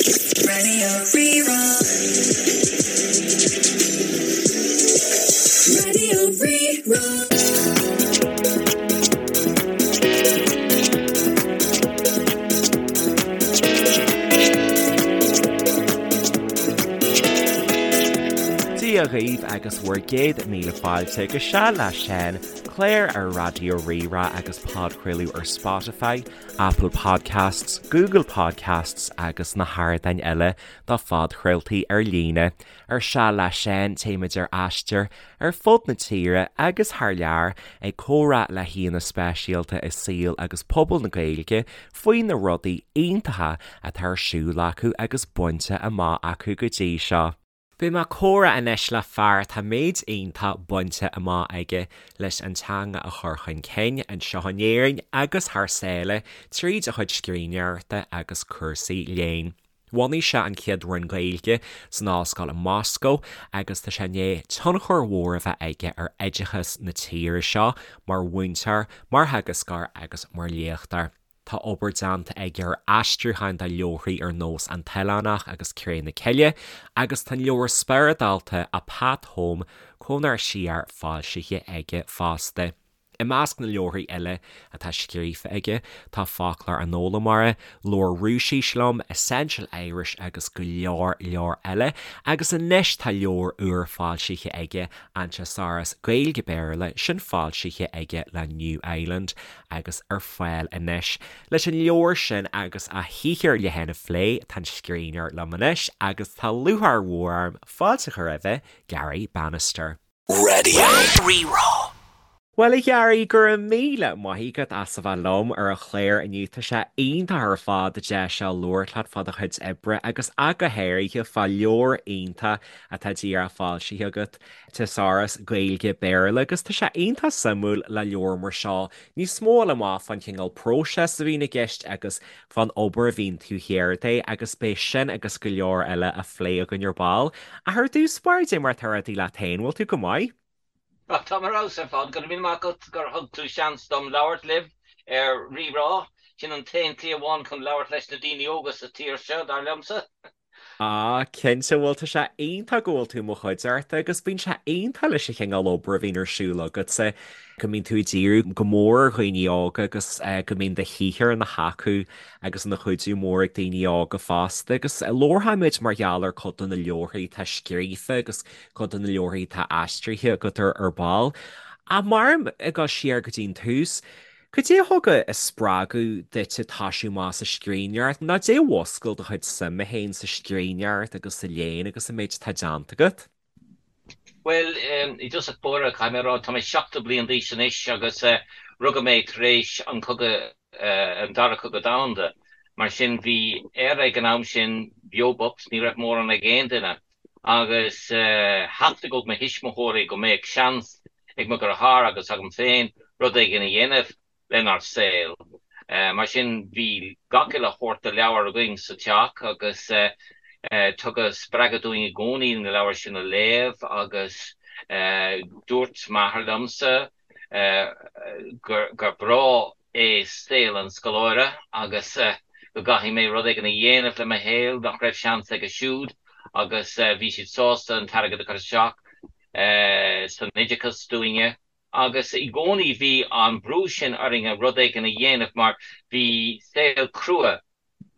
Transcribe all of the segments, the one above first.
Radio Rí-Rá. Radio Rí-Rá. Dia dhaoibh agus bhur gcéad míle fáilte go Seal le Seán, clár ar Raidió Rí-Rá agus podchraoladh ar Spotify, Apple Podcasts, Google Podcasts agus na hardáin eile do phodchraoltaí ar líne. Ar Seal le Seán, téimid ar aistear ar fud na tíre agus thar lear ag comhrá le haíonna speisialta i saol agus pobal na Gaeilge faoi na rudaí iontacha atá ar siúl acu agus bainte amach acu go dtí seo. Beidh mé ag comhrá anois le fear atá méid iontach bainte amach aige leis an teanga a chur chun cinn anseo in Éirinn agus thar sáile tríd a chuid scríbhneoireachta agus cúrsaí léinn. Bhunaigh sé an chéad roinn Gaeilge san ollscoil i Moscó agus tá sé i ndiaidh tionchar mhór a bheith aige ar oideachas na tíre seo mar mhúinteoir, mar theagascóir agus mar léachtóir. Tá obair déanta aige ar aistriúcháin de leabharthaí ar nós An tOileánach agus Cré na Cille agus tá an leabhar spioradálta A Path Home, Conair Siar foilsithe aige fosta. I measc na leabharthaí eile atá scríofa aige tá Foclóir an Fhoghlaimeora, Labhair Rúisis Liom, Essential Irish agus go leor leor eile agus anois tá leabhar úr foilsithe aige, An Teasáras Gaeilge-Béarla, sin foilsithe aige le New Island. agus ar fáil anois. Leis an leabhar sin agus a shaothar le haghaidh a phlé, tá an scríbhneoir liom anois agus tá lúcháir mhór orm fáilte a chur roimhe, Garry Bannister. Radio Rí-Rá. Bhuel, a Gharry, go raibh míle maith agat as a bheith liom ar an chlár inniu. Tá sé iontach ar fad an deis seo labhairt leat fá do chuid oibre agus ach go háirithe fá leabhar iontach atá díreach foilsithe agat. Teasáras Gaeilge Béarla agus tá sé iontach suimiúil le leabhar mar seo níos mó a fháil amach fán chineál próiseas a bhíonn i gceist agus fán obair a bhíonn taobh thiar de agus beidh sin agus go leor eile á phlé againn ar ball. Ach ar dtús báire, cad é mar atá rudaí leat féin, bhfuil tú go maith? Tá mé ar fheabhas ar fad. Go raibh míle maith agat gur thug tú seans dom labhairt libh ar Rí-Rá. Sin an t-aon tslí amháin chun labhairt leis na daoine óga sa tír seo, dar liomsa. Ah, cinnte, bhuel tá sé iontach go bhfuil tú i mo chuideachta agus bíonn sé iontach leis an chineál obair a bhíonn ar siúl agatsa, go mbíonn tú ag díriú go mór ar dhaoine óga agus go mbíonn do shaothar ina thacú agus ina chuidiú mór ag daoine óga fosta agus labharfaimid mar gheall ar cuid de na leabharthaí atá scríofa agus cuid de na leabharthaí atá aistrithe agat ar ar ball. Ach mar ag dul siar go dtí an tús, Cad é a thug an spreagadh duit toisiú amach sa scríbhneoireacht, nó cad é a mhúscail do chuid suime féin sa scríbhneoireacht agus sa léann agus an méid atá déanta agat? Bhuel, i dtosach báire, caithfidh mé a rá, tá mé 70 bliain d'aois anois agus rugadh mé tar éis an cogadh, an Dara Cogadh Domhanda. Mar sin, bhí Éire ag an am sin beo bocht, ní raibh mórán ag aon duine. Agus theastaigh ó mo thuismitheoirí go mbeadh seans ag mo dheartháir agus agam féin rud éigin a dhéanamh lenár saol. Mar sin bhí gach uile shórt de leabhar againn sa teach agus tugadh spreagadh dúinn i gcónaí na leabhair sin a léamh agus dúirt m'athair liomsa gur breá é saol an scoláire agus go gcaithfidh mé rud éigin a dhéanamh le mo shaol nach raibh seans aige siúd agus bhí siad sásta an t-airgead a chur isteach san oideachas dúinne agus i gcónaí bhí an brú sin orainne rud éigin a dhéanamh mar bhí saol crua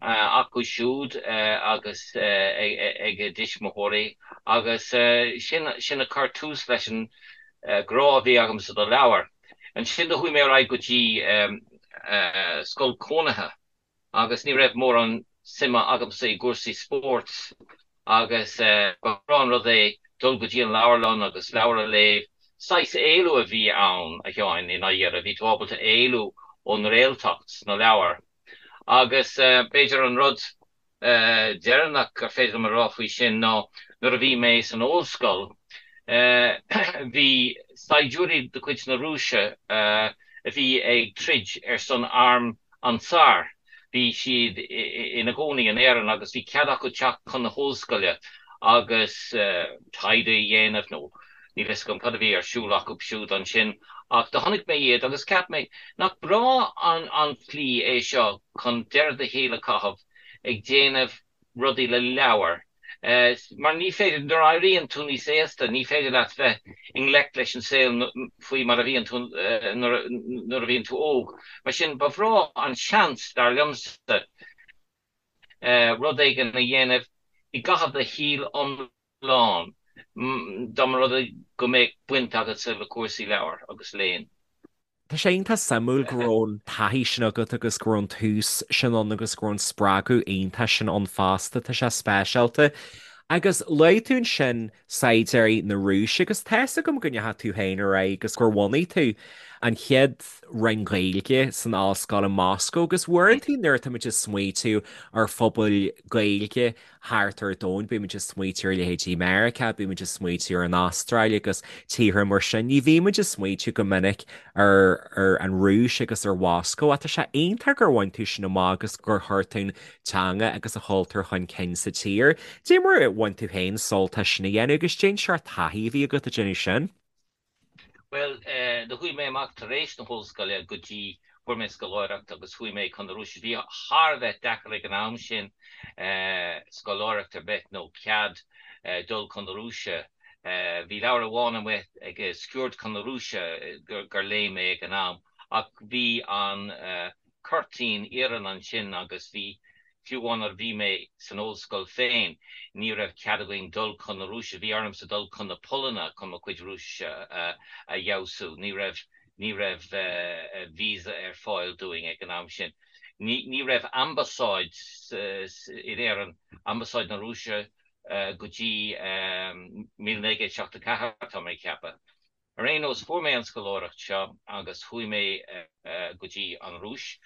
acu siúd agus ag a dtuismitheoirí agus sin sin a chuir tús leis an grá a bhí agamsa do leabhair. Ansin do chuaigh mé ar aghaidh go dtí scoil cónaithe agus ní raibh mórán suime agamsa i gcúrsaí spóirt agus ba bhreá an rud é dul go dtí an leabharlann agus leabhar a léamh. Saghas éalú a bhí ann, a Sheáin, i ndáiríre. Bhí tú ábalta éalú ón réaltacht sna leabhair. Agus b'fhéidir an rud deireanach gur féidir liom a rá faoi sin ná nuair a bhí mé san ollscoil, bhí saighdiúirí de chuid na Rúise a bhí ag troid ar son arm an tSáir, bhí siad ina gcónaí in Éirinn agus bhí cead acu teacht chun na hollscoile agus taighde a dhéanamh nó Níl fhios agam cad a bhí ar siúl acu siúd ansin ach do chonaic mé iad agus cheap mé, nach breá an tslí é seo chun deireadh do shaoil a chaitheamh ag déanamh. rudaí le leabhair. Mar ní féidir, nuair a éiríonn tú níos aosta, ní féidir leat bheith i ngleic leis an saol faoi mar a bhíonn tú nuair a bhíonn tú óg. Mar sin, ba bhreá an seans, dar liomsa, rud éigin a dhéanamh i gcaitheamh do shaoil iomlán, dá mba rud é go mbeadh baint agatsa le cúrsaí leabhar agus léinn. Tá sé iontach suimiúil go raibh an taithí sin agat agus go raibh an tús sin ann agus go raibh an spreagadh iontach sin ann fosta. Tá sé speisialta. Agus luaigh tú ansin saighdiúirí na Rúise agus tá fhios agam go ndeachaigh tú féin ar aghaidh agus gur bhunaigh tú an chéad roinn Ghaeilge san ollscoil i Moscó agus uaireanta nuair atá muid ag smaoitiú ar phobail Gaeilge thart ar domhan, bíonn muid ag smaoitiú ar leithéidí Meiriceá, bíonn muid ag smaoitiú ar an Astráil agus tíortha mar sin. Ní bhíonn muid ag smaoitiú go minic ar ar an Rúis agus ar Mhoscó ach tá sé iontach gur bhain tú sin amach agus gur chuir tú an teanga agus an cultúr chun cinn sa tír. Dé mar a bhain tú féin sult as sin a dhéanamh agus cén seort taithí a bhí agat ag déanamh sin. Bhuel, do chuaigh mé amach tar éis na hollscoile go dtí, fuair mé scoláireacht agus chuaigh mé chun na Rúise. Bhí thar a bheith deacair ag an am sin scoláireacht ar bith nó cead dul chun na Rúise. Bhí leabhar amháin amuigh ag Sciuird chun na Rúise gur léigh mé ag an am ach bhí an cuirtín iarainn ansin agus bhí, fiú amháin nuair a bhí mé san ollscoil féin, ní raibh cead againn dul chun na Rúise, bhí ormsa dul chun na Polainne chun mo chuid Rúisise a fheabhsú, ní raibh, ní raibh visa ar fáil dúinn ag an am sin. Ní, ní raibh ambasáid in Éirinn, ambasáid na Rúise go dtí 1974, tá mé ag ceapadh. Ar aon nós, fuair mé an scoláireacht seo agus chuaigh mé go dtí an Rúis.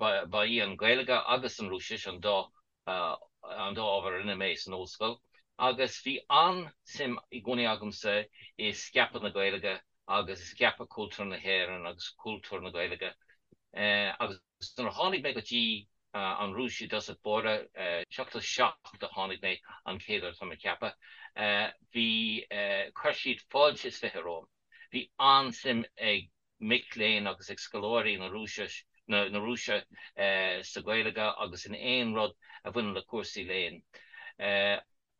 Ba í an Ghaeilge agus an Rúisis an dá an dá ábhar a rinne mé san ollscoil agus bhí an-suim i gcónaí agamsa i scaipeadh na Gaeilge agus i scaipeadh cultúr na hÉireann agus cultúr na Gaeilge agus Nuair a tháinig mé go dtí an Rúis i dtosach báire, 77 a tháinig mé an chéad uair tá mé ag ceapadh, bhí, chuir siad fáilte is 20 romham. Bhí an-suim ag mic léinn agus ag scoláirí na Rúise, na Rúise sa Ghaeilge agus in aon rud a bhaineann le cúrsaí léinn.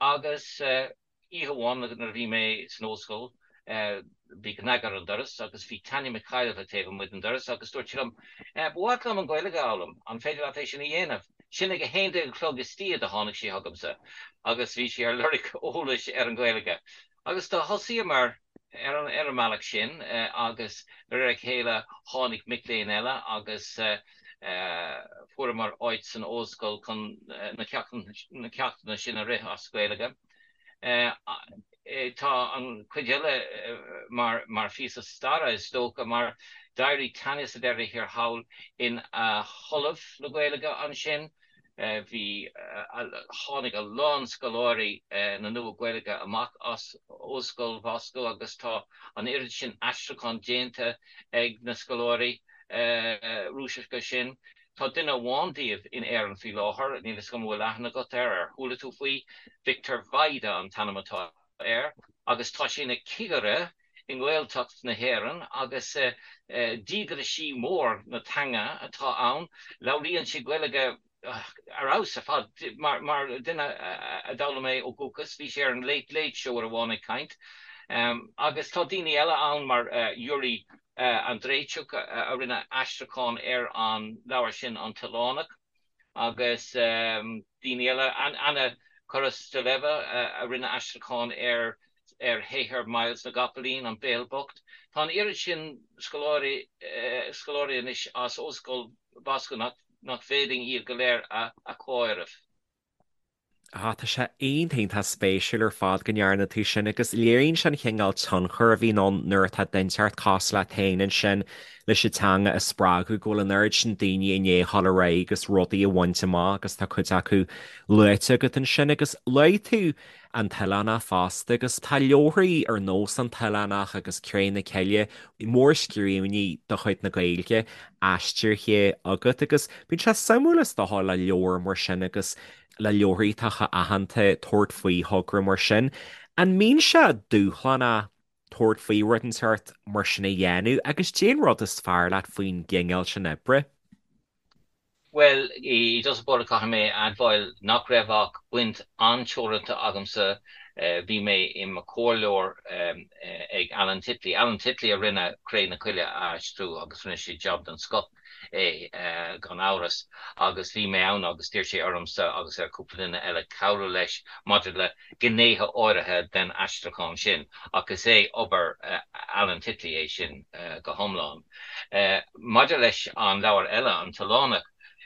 Agus oíche amháin nuair a bhí mé san ollscoil, bhí cnag ar an doras agus bhí Tanya Mikhailova taobh amuigh den doras agus dúirt sí liom, 'Ba mhaith liom an Ghaeilge a fhoghlaim, an féidir leat é sin a dhéanamh? Sin ag a haon déag a chlog istoíche do tháinig sí chugamsa agus bhí sí ar lorg eolais ar an Ghaeilge. Agus do thosaíomar ar an ar an mbealach sin agus de réir a chéile tháinig mic léinn eile agus fuaireamar áit san ollscoil chun na ceachtanna sin a rith as Gaeilge. Tá an chuid eile mar mar phíosa staire is dócha mar d'éirigh Tanya sa deireadh thiar thall ina hollamh le Gaeilge ansin. Bhí, tháinig a lán scoláirí na Nua-Ghaeilge amach as Ollscoil Mhoscó agus tá an oiread sin aistriúchán déanta ag na scoláirí Rúiseacha sin. Tá duine amháin díobh in Éirinn faoi láthair, níl fhios agam an bhfuil aithne agat air, ar chuala tú faoi? Victor Vajda an t-ainm atá air agus tá sé ina chigire i nGaeltacht na hÉireann agus díograisí mór na teanga atá ann. Labhraíonn sé Gaeilge ar fheabhas ar fad mar duine a d'fhoghlaim é ó dhúchas. Bhí sé ar an Late Late Show uair amháin ag caint. Agus tá daoine eile ann mar Yuri Andreichuk a rinne aistriúchán ar an leabhar sin An tOileánach. agus daoine eile, Anna Korosteleva a rinne aistriúchán ar ar shaothar Myles na gCopaleen, An Béal Bocht. Tá an oiread sin scoláirí scoláirí anois as Ollscoil Mhoscó nach nach bhféadfainn iad go léir a chomhaireamh. Ah, tá sé iontach iontach spéisiúil ar fad go ndearna tú sin agus léiríonn sé an chineál tionchair a bhíonn ann nuair atá duine inteacht cosúil leat féin ansin leis an teanga a spreagadh, go bhfuil an oiread sin daoine i ndiaidh a dhul ar aghaidh agus rudaí a bhaint amach agus tá cuid acu luaite agat ansin agus luaigh tú An tOileánach fosta agus tá leabharthaí ar nós An tOileánach agus Cré na Cille, mórscríbhinní de chuid na Gaeilge aistrithe agat agus bíonn sé suimiúil is dócha le leabhar mar sin agus le leabharthaí atá chomh aitheanta tabhairt faoi thogra mar sin. An mbíonn sé dúshlánach tabhairt faoi rud inteacht mar sin a dhéanamh agus cén rud is fearr leat faoin gcineál sin oibre? Bhuel, i dtosach báire caithfidh mé a admháil nach raibh ach baint an-teoranta agamsa. Bhí mé i mo chomhairleoir ag Alan Titley. Alan Titley a rinne Cré na Coille a aistriú agus rinne sé jab den scoth é, gan amhras. Agus bhí mé ann agus d'iarr sé ormsa agus ar chúpla duine eile cabhrú leis maidir le gnéithe áirithe den aistriúchán sin, ach is é obair Alan Titley é sin go hiomlán. Maidir leis an leabhar eile, An tOileánach,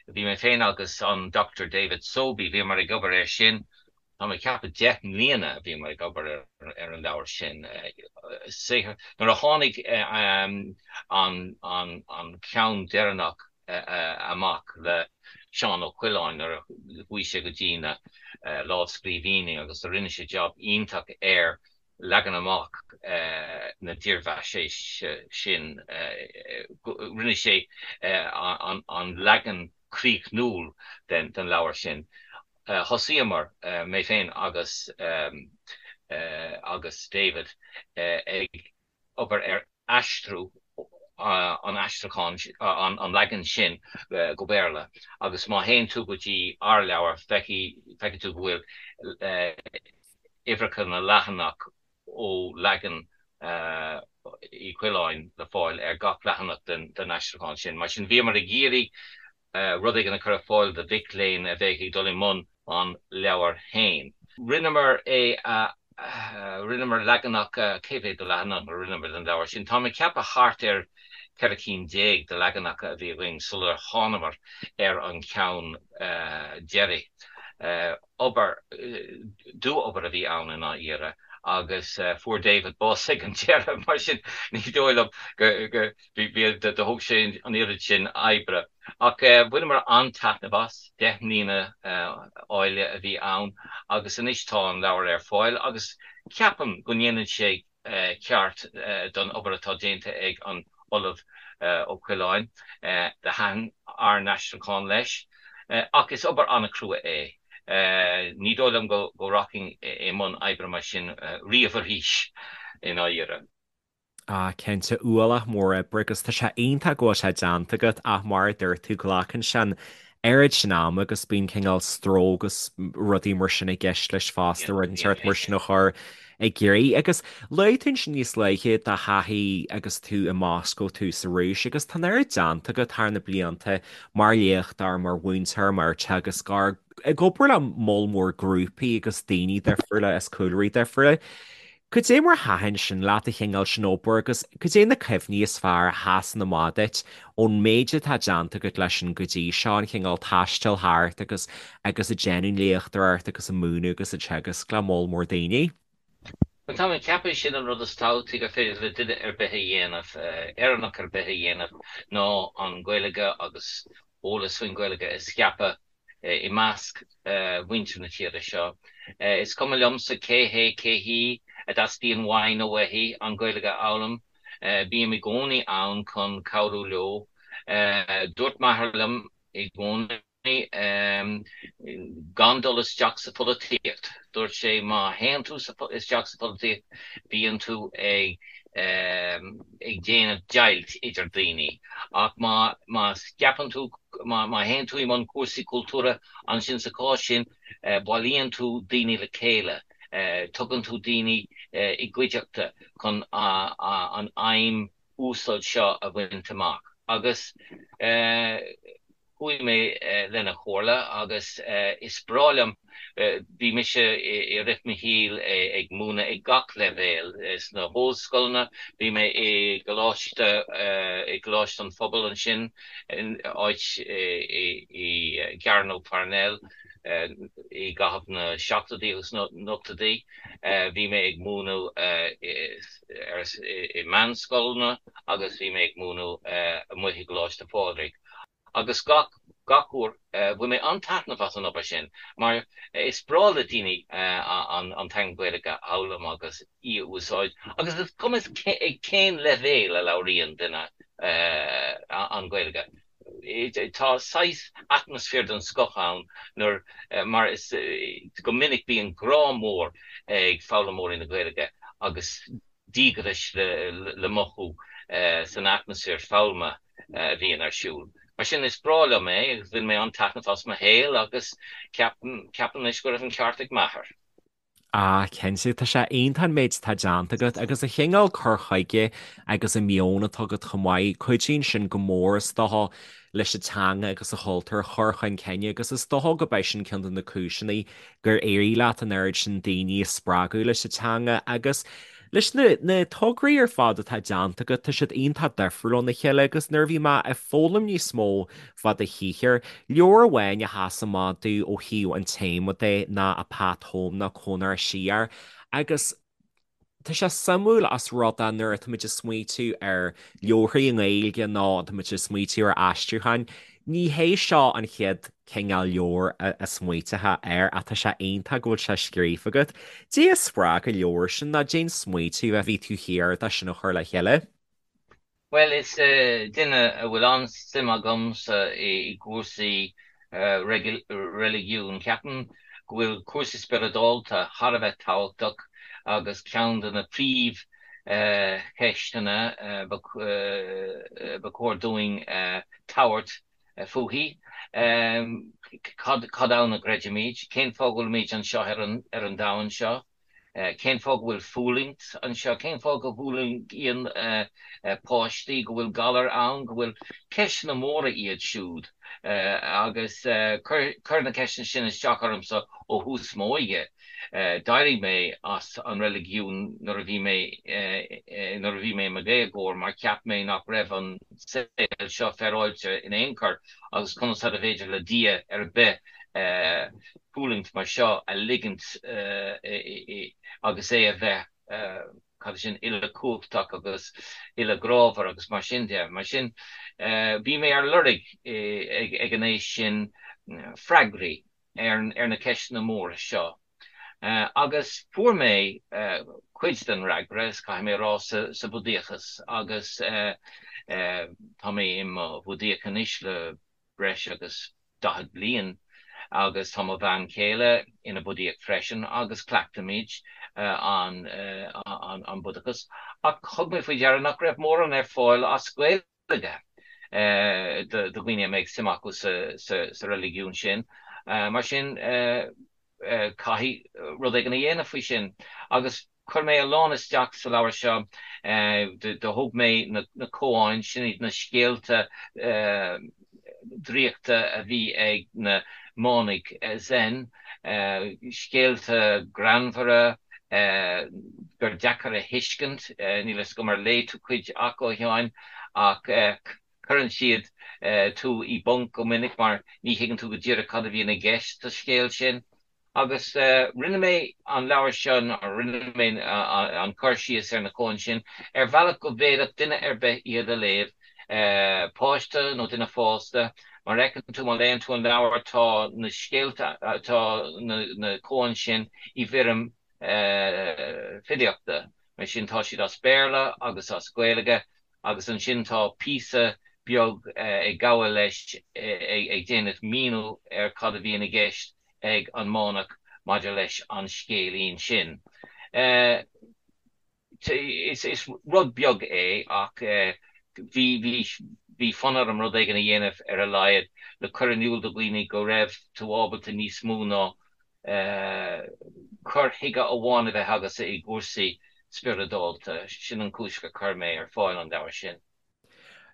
bhí mé féin agus an Dr David Sobey, bhíomar ag obair air sin, tá mé ag ceapadh 10 mbliana a bhíomar ag obair ar an leabhar sin. Saothar, nuair a tháinig an ceann deireanach amach le Seán Ó Coileáin nuair a chuaigh sé go dtí na lámhscríbhinní agus do rinne sé jab iontach ar leagan amach na dírbheathaisnéise sin. Rinne sé an leagan críochnúil den leabhar sin. Thosaíomar, mé féin agus agus David, ag obair ar aistriú an aistriúcháin, an leagan sin go Béarla agus má théann tú go dtí ár leabhar feicfidh tú go bhfuil uimhreacha na leathanach ó leagan Uí Choileáin le fáil ar gach leathanach den aistriúchán sin. Mar sin bhíomar ag iarraidh rud éigin a chur ar fáil do mhic léinn a bheadh ag dul i mbun an leabhair féin. Rinneamar é a, rinneamar leaganacha, cé mhéad de leathanach a rinneamar den leabhar sin? Táim ag ceapadh thart ar 14 cinn de leaganacha a bhí againn sular thánamar ar an cheann deiridh. Obair, dua-obair a bhí ann i ndáiríre agus fuair David bás ag an deireadh, mar sin ní dóigh liom go, bhí, do thóg sé an oiread sin oibre. Ach bhaineamar an-taitneamh as, 10 mbliana áille a bhí ann agus anois tá an leabhar ar fáil agus ceapaim go ndéanann sé ceart don obair atá déanta ag an Ollamh Ó Coileáin. Do thaitin ár n-aistriúchán leis. Ach is obair an-chrua é. Ní dóigh liom go rachainn i mbun oibre mar sin riamh arís, i ndáiríre. Ah, cinnte, ualach mór oibre agus tá sé iontach go bhfuil sé déanta agat ach mar a dúirt tú, glacann sé an oiread sin ama agus bíonn cineál stró agus rudaí mar sin i gceist leis fosta, rud inteacht mar sin a chur i gcrích. Agus luaigh tú ansin níos luaithe do thaithí agus tú i Moscó, tú sa Rúis agus tá an oiread déanta agat thar na blianta mar léachtóir, mar mhúinteoir, mar theagascóir, ag obair le moll mór grúpaí agus daoine difriúla as cúlraí difriúla. Cad é mar a thaitin sin leat, an chineál sin obair agus cad é na cuimhní is fearr a sheasann amach duit ón méid atá déanta agat leis sin go dtí seo, an chineál taistil thart agus agus ag déanamh léachtóireacht agus ag múineadh agus ag teagasc le moll mór daoine? Bhuel, tá mé ag ceapadh sin an rud is tábhachtaí gur féidir le duine ar bith a dhéanamh, Éireannach ar bith a dhéanamh, ná an Ghaeilge agus eolas faoin Ghaeilge a scaipeadh i measc mhuintir na tíre seo. Is cuma liomsa cé hé, cé hí a dteastaíonn uaidh nó uaithi an Ghaeilge a fhoghlaim, bím i gcónaí ann chun cabhrú leo. Dúirt m'athair liom i gcónaí gan dul isteach sa pholaitíocht. Dúirt sé má théann tú isteach sa pholaitíocht bíonn tú ag ag déanamh deighilt idir daoine. Ach má má scaipeann tú, má má théann tú i mbun cúrsaí cultúrtha, ansin sa chás sin bailíonn tú daoine le chéile, tugann tú daoine i gcuideachta chun an aidhm uasal seo a bhaint amach. Agus. Chuaigh mé lena chomhairle agus is breá liom, bhí mise i rith mo shaoil ag múineadh ag gach leibhéal, sna hollscoileanna, bhí mé i gColáiste, i gColáiste an Phobail ansin, áit i gCearnóg Pharnell i gcaitheamh na seachtóidí agus na n-ochtóidí, bhí mé ag múineadh i meánscoileanna agus bhí mé ag múineadh amuigh i gColáiste Phádraig. Agus gach, gach uair, bhain mé an-taitneamh as an obair sin, mar is breá le daoine an teanga Ghaeilge a fhoghlaim agus í a úsáid, agus is cuma ag cén leibhéal a labhraíonn duine an Ghaeilge. Tá saghas atmaisféar den scoth ann nuair, mar is, go minic bíonn grá mór ag foghlaimeoirí na Gaeilge agus díograis le mothú san atmaisféar foghlama a bhíonn ar siúl. Mar sin, is breá liom é agus bhain mé an-taitneamh as mo shaol agus ceapaim anois go raibh an ceart ag m'athair. Ah, cinnte, tá sé iontach an méid atá déanta agat agus an chineál cur chuige agus an meon atá agat chomh maith, cuidíonn sin go mór is dócha leis an teanga agus an chultúr a chur chun cinn agus is dócha go b'é sin ceann de na cúiseanna gur éirigh leat an oiread sin daoine a spreagadh leis an teanga agus leis na na tograí ar fad atá déanta agat, tá siad iontach difriúil óna chéile agus nuair a bhí mé ag foghlaim níos mó fá do shaothar, leabhar amháin a sheas amach domh ó thaobh an téama de ná A Path Home nó Conair Siar agus tá sé suimiúil os rud é nuair atáimid ag smaoitiú ar leabharthaí i nGaeilge nó táimid ag smaoitiú ar aistriúcháin, ní hé seo an chéad cineál leabhair a smaoiteofá air ach tá sé iontach go bhfuil sé scríofa agat. Cad é a spreag an leabhar sin nó cad é an smaoitiú a bhí taobh thiar de sin a chur le chéile. Bhuel, is duine a bhfuil an-suim agamsa i gcúrsaí reiligiúin. Ceapaim go bhfuil cúrsaí spioradálta thar a bheith tábhachtach agus ceann de na príomhcheisteanna ba chóir dúinn tabhairt fúithi, cad ann a gcreidimid? Cén fáth go bhfuilimid anseo ar an domhan seo? Cén fáth go bhfuil fulaingt anseo? Cén fáth go bhfulaingíonn páistí, go bhfuil galair ann, go bhfuil. Ceisteanna móra iad siúd agus chuir na ceisteanna sin isteach ormsa ó thús m'óige. D'éirigh mé as an reiligiún nuair a bhí mé nuair a bhí mé i mo dhéagóir mar cheap mé nach raibh an saol seo féaráilte in aon chor agus conas arbh fhéidir le Dia ar bith fulaingt mar seo a ligint agus é a bheith, cad é sin, uilechumhachtach agus uilegrámhar agus mar sin de. Mar sin, bhí mé ar lorg ag an aois sin freagraí ar na ceisteanna móra seo. Agus fuair mé cuid den fhreagra, is caithfidh mé a rá, sa Bhudaíochas agus tá mé i mo Bhudaíoch anois le breis agus 40 bliain agus tá mo bhean chéile ina Budaíoch freisin agus cleachtaimid an an Budachas ach thug mé faoi deara nach raibh mórán ar fáil as Gaeilge do dhaoine a mbeadh suim acu sa reiligiún sin. Mar sin caithfidh rud éigin a dhéanamh faoi sin agus Chuir mé a lán isteach sa leabhar seo. Do thóg mé na koans, sin iad na scéalta draíochta a bhí ag na manaigh Zen, scéalta greannmhara gur deacair a thuiscint. Níl a fhios agam ar léigh tú cuid acu, a Sheáin, ach cuireann siad tú i bponc go minic mar ní thuigeann tú go díreach cad a bhíonn i gceist sa scéal sin. Agus rinne mé an leabhar seo, nó rinne mé an cur síos ar na koans sin, ar bhealach go bhféadfadh duine ar bith iad a léamh, páiste nó duine fásta. Mar a fheiceann tú, má léann tú an leabhar, tá na scéalta, tá na koans sin i bhfoirm filíochta. Mar sin, tá siad as Béarla agus as Gaeilge, agus ansin tá píosa beag ag gabháil leis ag déanamh míniú ar cad a bhíonn i gceist ag an manach maidir leis an scéilín sin. Is rud beag é ach bhí bhí fonn orm rud éigin a dhéanamh ar a laghad le cur in iúl do dhaoine go raibh tú ábalta níos mó ná cur chuige amháin a bheith agatsa i gcúrsaí spioradálta. Sin an chúis gur chuir mé ar fáil an leabhar sin.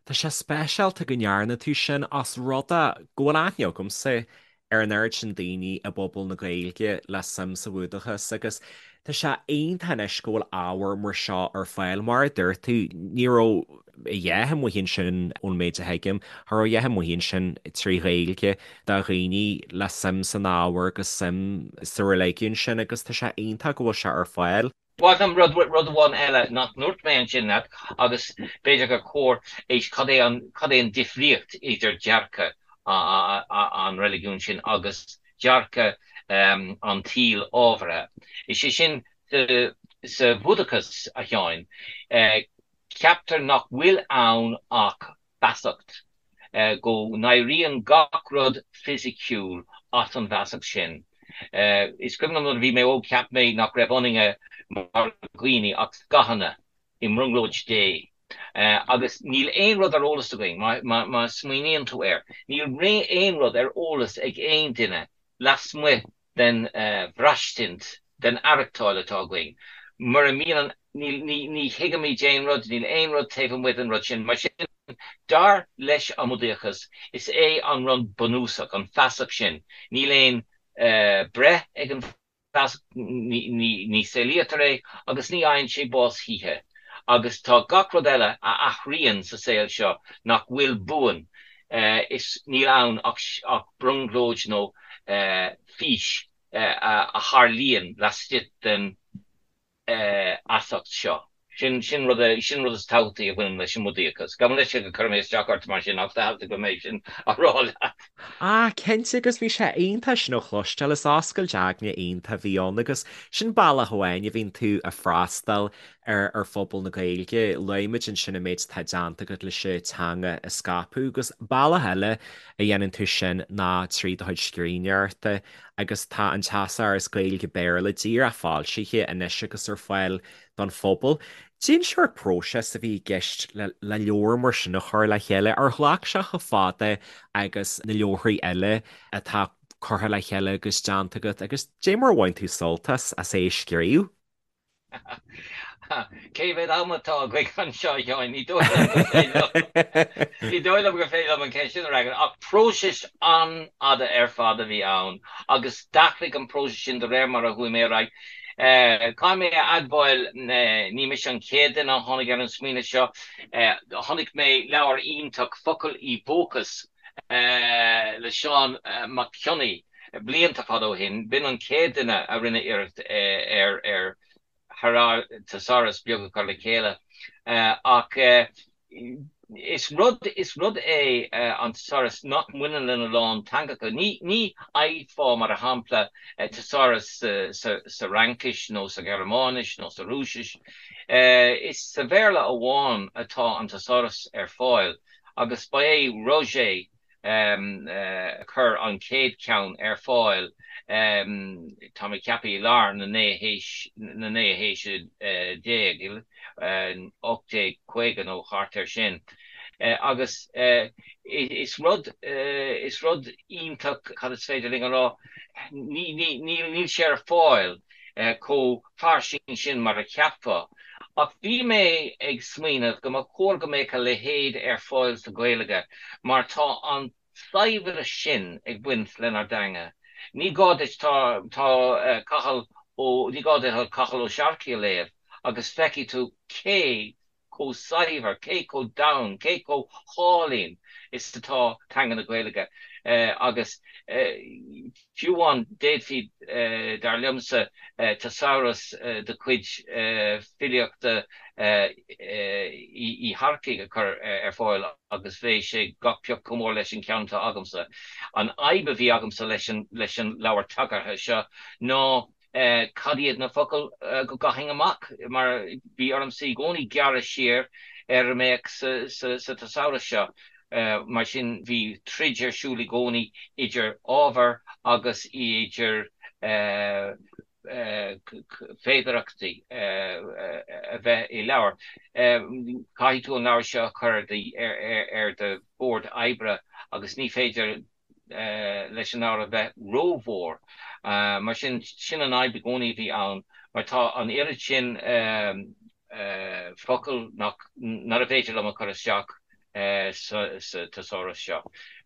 Tá sé speisialta go ndearna tú sin os rud é go bhfuil aithne agamsa ar an oiread sin daoine i bpobal na Gaeilge le suim sa Bhúdachas agus tá sé iontach anois go bhfuil ábhar mar seo ar fáil. Mar a dúirt tú, ní raibh a dhath amuigh ansin, ón méid a thuigim, cha raibh a dhath amuigh ansin trí Ghaeilge do dhaoine le suim san ábhar agus suim sa reiligiún sin agus tá sé iontach go bhfuil sé ar fáil. Ba mhaith liom rud, rud amháin eile nach ndúirt mé ansin leat agus b'fhéidir gur chóir é, cad é an, cad é an difríocht idir dearcadh an reiligiúin sin agus dearcadh an tsaoil ábhartha. Is é sin, sa Bhúdachas, a Sheáin, ceaptar nach bhfuil ann ach feasacht, go n-éiríonn gach rud fisiciúil as an bhfeasacht sin. Is cuimhin liom nuair a bhí mé óg cheap mé nach raibh ionainne mar dhaoine ach scáthanna i mbrionglóid Dé. Agus níl aon rud ar eolas againn, má smaoiníonn tú air, níl aon rud ar eolas ag aon duine lasmuigh den bhraistint, den aireachtáil atá againn. Mura mbíonn an, níl, ní, ní thuigimid aon rud, níl aon rud taobh amuigh den rud sin. Mar sin, dar leis an mBúdaíochas, is é an rud bunúsach, an feasacht sin. Níl aon breith ag an bhfeasacht, ní, ní saolaítear é agus ní fhaigheann sé bás choíche. Agus tá gach rud eile a athraíonn sa saol seo nach bhfuil buan, is níl ann ach brionglóid nó fís a tharlaíonn laistigh den fheasacht seo. Sin sin rud sin rud is tábhachtaí a bhaineann leis an mBúdaíochas. Gabh mo leithscéal gur chuir mé isteach ort mar sin ach theastaigh uaim é sin a rá leat. Ah, cinnte agus bhí sé iontach sin a chloisteáil, is oscailt aigne iontach a bhí ann agus sin bealach amháin a bhíonn tú ag freastal ar ar phobal na Gaeilge. Luaigh muid ansin an méid atá déanta agat leis an teanga a scaipeadh agus bealach eile a dhéanann tú sin ná trí do chuid scríbhneoireachta agus tá an Teasáras Gaeilge-Béarla díreach foilsithe anois agus ar fáil don phobal. Cén sórt próiseas a bhí i gceist le leabhar mar sin a chur le chéile? Ar ghlac sé chomh fada agus na leabharthaí eile atá curtha le chéile agus déanta agat agus cad é mar a bhain tú sult as as é a scríobh? Cé mhéad am atá againn anseo, a Sheáin? Ní dóigh liom gur féidir liom, ní dóigh liom gur féidir liom an cheist sin a fhreagairt, ach próiseas an-fhada ar fad a bhí ann agus d'athraigh an próiseas sin de réir mar a chuaigh mé ar aghaidh. Caithfidh mé a admháil, ní mise an chéad duine a tháinig ar an smaoineamh seo. Chonaic mé leabhar iontach, Focail i bhFócas, le Seán Mac Cionnaith, Blianta fada ó shin, b'in an chéad duine a rinne iarracht ar ar thesaurus beag a chur le chéile. Ach is rud is rud é an thesaurus nach mbaineann lena lán teangacha. Ní ní fhaighfeá, mar shampla, thesaurus sa sa Fhraincis nó sa Ghearmáinis nó sa Rúisis. Is sa Bhéarla amháin atá an thesaurus ar fáil agus ba é Roget a chuir an chéad cheann ar fáil, tá mé ag ceapadh i lár na naoú haois, na naoú haoise déag, 1850 nó thart air sin. Agus is rud, is rud iontach, cad is féidir linn a rá, ní, ní, níl sé ar fáil chomh fairsing sin mar a cheapfá. Ach bhí mé ag smaoineamh go mba chóir go mbeadh a leithéid ar fáil sa Ghaeilge mar tá an saibhreas sin ag baint lenár dteanga. Ní gá duit, tá, tá Cathal Ó, ní gá duit Cathal Ó Searcaigh a léamh agus feicfidh tú cé chomh saibhir, cé chomh domhain, cé chomh hálainn is atá teanga na Gaeilge. Agus fiú amháin, d'fhéadfaí, dar liomsa, teasáras de chuid filíochta Uí Shearcaigh a chur ar fáil agus bheadh sé gach pioc chomh mór leis an cheann atá agamsa. An fhadhb a bhí agamsa leis an leabhar tagartha seo ná Cad iad na focail go gcaithfinn amach? Mar bhí ormsa i gcónaí gearradh siar ar a mbeadh sa teasáras seo. Mar sin bhí troid ar siúl i gcónaí idir ábhar agus idir féidearthachtaí a bheith i leabhar. Caithfidh tú an leabhar seo a chur ar do bhord oibre agus ní féidir leis an leabhar a bheith rómhór. Mar sin, sin an fhadhb i gcónaí a bhí ann, mar tá an oiread sin focal nach, nárbh fhéidir liom a chur isteach sa teasáras seo.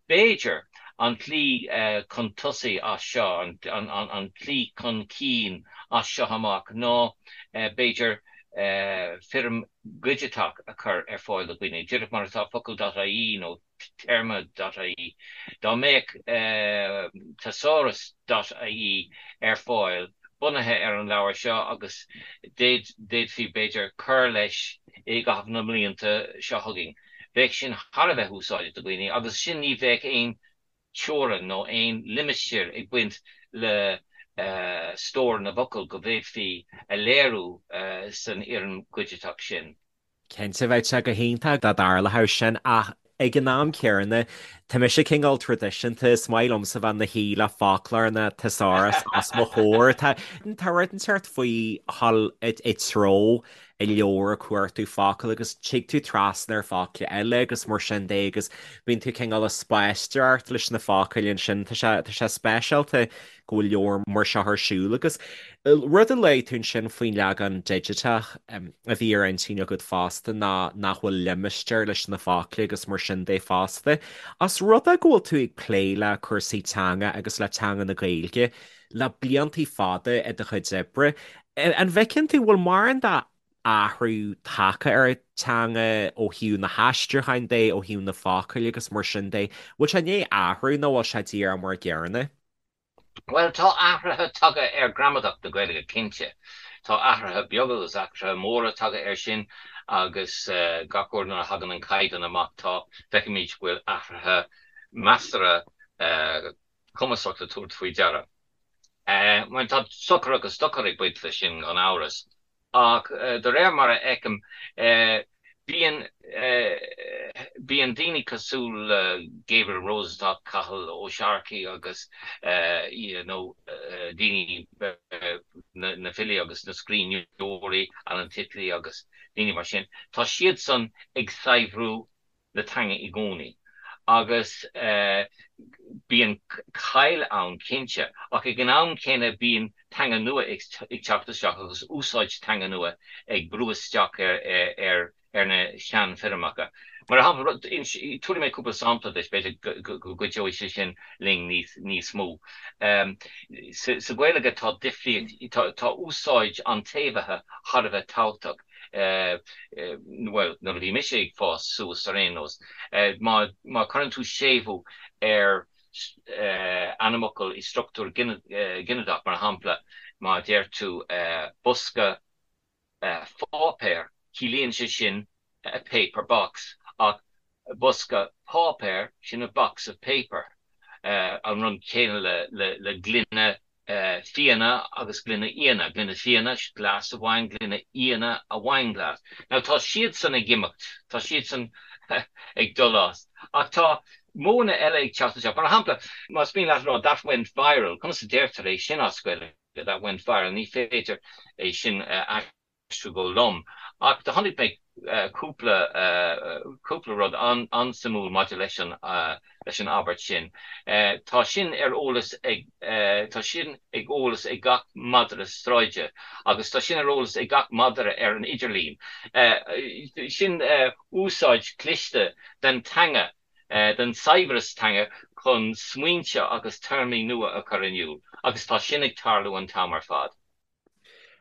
B'fhéidir an tslí chun tosaigh as seo, an tslí chun cinn as seo amach ná b'fhéidir foirm dhigiteach a chur ar fáil do dhaoine, díreach mar atá focal.ie nó téarma dot ie. Dá mbeadh thesaurus dot ie ar fáil bunaithe ar an leabhar seo agus d'fhéadfaí b'fhéidir cur leis i gcaitheamh na mblianta seo chugainn, bheadh sin thar a bheith úsáideach do dhaoine agus sin ní bheadh aon teorainn nó aon limistéar ag baint le stór na bhfocal go bhféadfaí a léiriú san fhoirm dhigiteach sin. Cinnte, bheadh sé go hiontach dá dtarlódh sin ach ag an am céanna. Tá mise cineál traidisiúnta, is maith liomsa bheith 'na shuí le foclóir nó thesaurus os mo chomhair. Tá tá rud inteacht faoi dhul i dtreo i leabhar ag cuartú focal agus tig tú trasna ar focla eile agus mar sin de agus bíonn tú cineál ag spaisteoireacht leis na focail ansin. Tá sé tá sé speisialta go bhfuil leabhar mar seo ar siúl agus rud a luaigh tú ansin faoin leagan digiteach a bhí ar intinn agat fosta ná nach bhfuil limistéar leis na focla agus mar sin de fosta. Os rud é go bhfuil tú ag plé le cúrsaí teanga agus le teanga na Gaeilge le bliantaí fada i do chuid oibre, an bhfeiceann tú, bhfuil mórán de athrú tagtha ar an teanga ó thaobh na haistriúcháin de, ó thaobh na focail agus mar sin de. Bhfuil sé i ndiaidh athrú nó bhfuil sé díreach mar an gcéanna? Bhuel, tá athruithe tagtha ar ghramadach na Gaeilge, cinnte. Tá athruithe beaga agus athruithe móra tagtha air sin agus gach uair nuair a thagann an caighdeán amach tá, feicimid go bhfuil athruithe measartha cumasach le tabhairt faoi deara. Bhuel, tá sochar agus dochar ag baint leis sin, gan amhras. Ach de réir mar a fheicim, bíonn bíonn daoine cosúil le Gabriel Rosenstock, Cathal Ó Searcaigh agus you know daoine, na filí agus na scríbhneoirí, Alan Titley agus daoine mar sin, tá siadsan ag saibhriú na teanga i gcónaí agus bíonn caill ann cinnte ach ag an am céanna bíonn teanga nua ag teacht isteach agus úsáid teanga nua ag brú isteach ar ar na seanfhoirmeacha. Mar shampla, tabharfaidh mé cúpla sampla duit, b'fhéidir go gcuideoidh sé sin linn níos mó. Sa Ghaeilge tá difríocht, tá úsáid an tséimhithe thar a bheith tábhachtach. bhuel, nuair a bhí mise ag fás suas ar aon nós, má, má chuireann tú séimhiú ar ainmfhocal i struchtúr ginideach, mar shampla, má deir tú bosca pháipéir, ciallaíonn sé sin a paper box, ach bosca páipéir, sin a box of paper. An rud céanna le, le gloine fíona agus gloine fhíona, gloine fíona, glass of wine, gloine fhíona, a wine glass. Now tá siadsan ag imeacht, tá siadsan ag dul as. Ach tá modhanna eile ag teacht isteach. Mar shampla, más mian leat a rá that went viral, conas a deirtear é sin as Gaeilge, that went viral, ní féidir é sin a aistriú go lom. Ach do chonaic mé cúpla cúpla rud an-suimiúil maidir leis an leis an abairt sin. Tá sin ar eolas ag tá sin ag eolas ag gach madra sráide agus tá sin ar eolas ag gach madra ar an idirlíon. Sin úsáid cliste den teanga, den saibhreas teanga chun smaointe agus téarmaí nua a chur in iúl agus tá sin ag tarlú an t-am ar fad.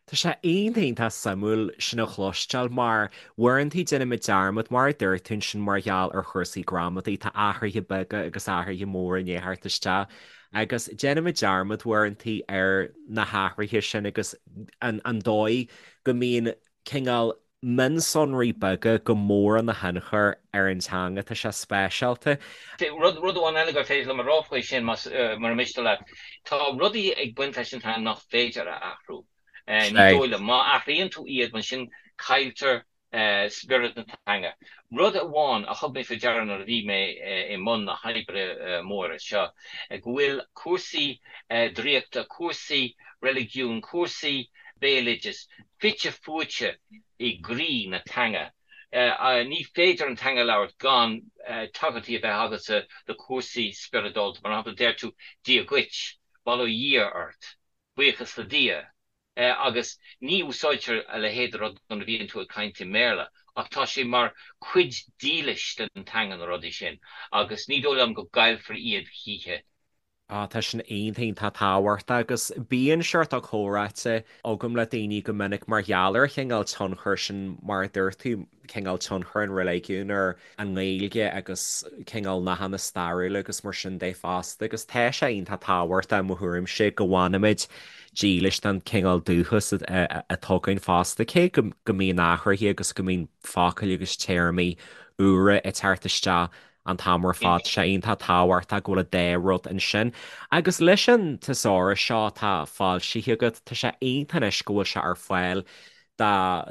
Tá sé iontach iontach suimiúil sin a chloisteáil mar uaireanta déanaimid dearmad, mar a dúirt tú ansin mar gheall ar chúrsaí gramadaí, tá athruithe beaga agus athruithe móra i ndiaidh theacht isteach agus déanaimid dearmad uaireanta ar na hathruithe sin agus an dóigh go mbíonn cineál mionsonraí beaga go mór ina thionchar ar an teanga. Tá sé speisialta. Rud amháin eile gur féidir liom a rá faoi sin, más mura miste leat, tá rudaí ag baint leis an teanga nach féidir a athrú. Ní dóigh liom. Má athraíonn tú iad, ansin cailltear spiorad na teanga. Rud amháin a thug mé faoi deara nuair a bhí mé i mbun na hoibre móire seo, go bhfuil cúrsaí draíochta, cúrsaí reiligiúin, cúrsaí béaloideas fite fuaite i gcroí na teanga. Ní féidir an teanga a labhairt gan tagairtí a bheith agatsa do chúrsaí spioradálta. Mar shampla, deir tú 'Dia dhuit', 'Bail ó Dhia ort', 'Buíochas le Dia', agus ní úsáidtear a leithéid de rud nuair a bhíonn tú ag caint i mBéarla, ach tá sé mar chuid dílis den teanga na rudaí sin, agus ní dóigh liom go gcaillfear iad choíche. Á, tá sin iontach iontach tábhachtach agus bíonn seort comhráite agam le daoine go minic mar gheall ar an chineál tionchair sin, mar a dúirt tú, cineál tionchar an reiligiúin ar an nGaeilge agus cineál nathanna stairiúla agus mar sin de fosta agus tá sé iontach tábhachtach i mo thuairimse go bhfanaimid dílis don chineál dúchas atá againn fosta, cé go mbíonn athruithe agus go mbíonn focail agus téarmaí úra ag teacht isteach an t-am ar fad. Tá sé iontach tábhachtach go bhfuil an dá rud ansin. Agus leis an teasáras seo atá foilsithe agat, tá sé iontach anois go bhfuil sé ar fáil. Do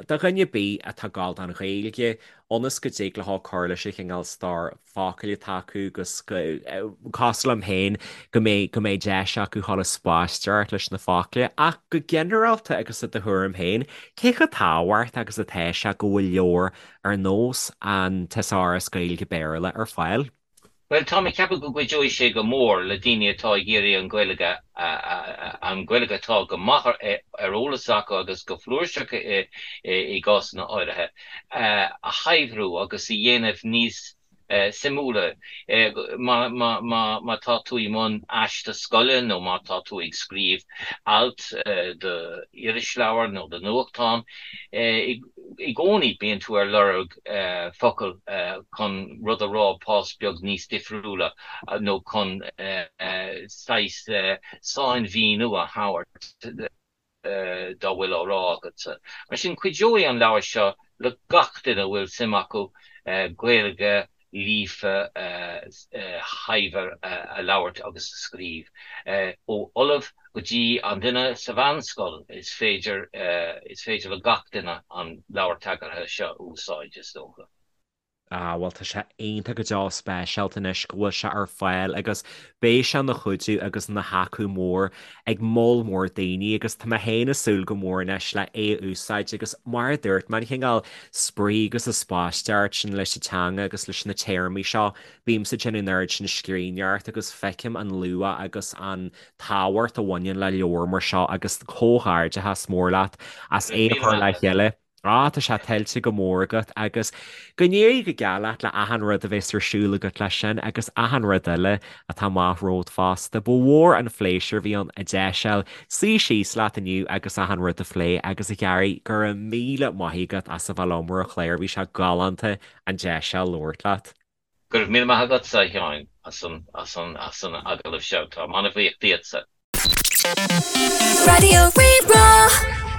dhuine ar bith atá ag gabháil don Ghaeilge, ionas go dtig leo cur leis an chineál stór focal atá acu agus go, cosúil liom féin, go mbeidh, go mbeidh deis acu dhul ag spaisteoireacht leis na focla. Ach go ginearálta agus i do thuairim féin, cé chomh tábhachtach agus atá sé go bhfuil leabhar ar nós an Teasáras Gaeilge-Béarla ar fáil? Bhuel, táim ag ceapadh go gcuideoidh sé go mór le daoine atá ag iarraidh an Ghaeilge, an Ghaeilge atá go maith ar eolas acu agus go flúirseach i gcásanna áirithe, a shaibhriú agus a dhéanamh níos suimiúla. Má tá tú i mbun aiste scoile nó má tá tú ag scríobh alt do irisleabhar nó do nuachtán, I gcónaí bíonn tú ar lorg focal chun rud a rá pás beag níos difriúla nó chun saghas sainmhíniú a thabhairt dá bhfuil á rá agatsa. Mar sin, cuideoidh an leabhar seo le gach duine a bhfuil suim acu Gaeilge líofa shaibhir a labhairt agus a scríobh. Ó ollamh go dtí an duine sa mheánscoil, is féidir is féidir le gach duine an leabhar tagartha seo a úsáid, is dócha. Ah, bhuel, tá sé iontach go deo speisialta anois go bhfuil sé ar fáil agus beidh sé ina chuidiú agus ina thaca mór ag moll mór daoine agus tá mé féin ag súil go mór anois le é a úsáid agus mar a dúirt mé, an cineál spraoi agus an spaisteoireacht sin leis an teanga agus leis na téarmaí seo, bímse ag déanamh an oiread sin scríbhneoireacht agus feicim an luach agus an tábhacht a bhaineann le leabhar mar seo agus comhghairdeachas mór leat as é a chur le chéile. Á, tá sé tuillte go mór agat agus go n-éirí go geal leat le achan rud a bheas ar siúl agat leis sin agus achan rud eile atá amach romhat fosta. Ba mhór an phléisiúr a bhí ann an deis a fháil suí síos leat inniu agus achan rud a phlé agus a Ghearaí, go raibh míle maith agat as a bheith liom ar an chlár, bhí sé galánta an deis a fháil labhairt leat. Go raibh míle maith agatsa, a Sheáin, as an, as an, as an agallamh seo. Táim an-bhuíoch díotsa. Raidió Rí-Rá.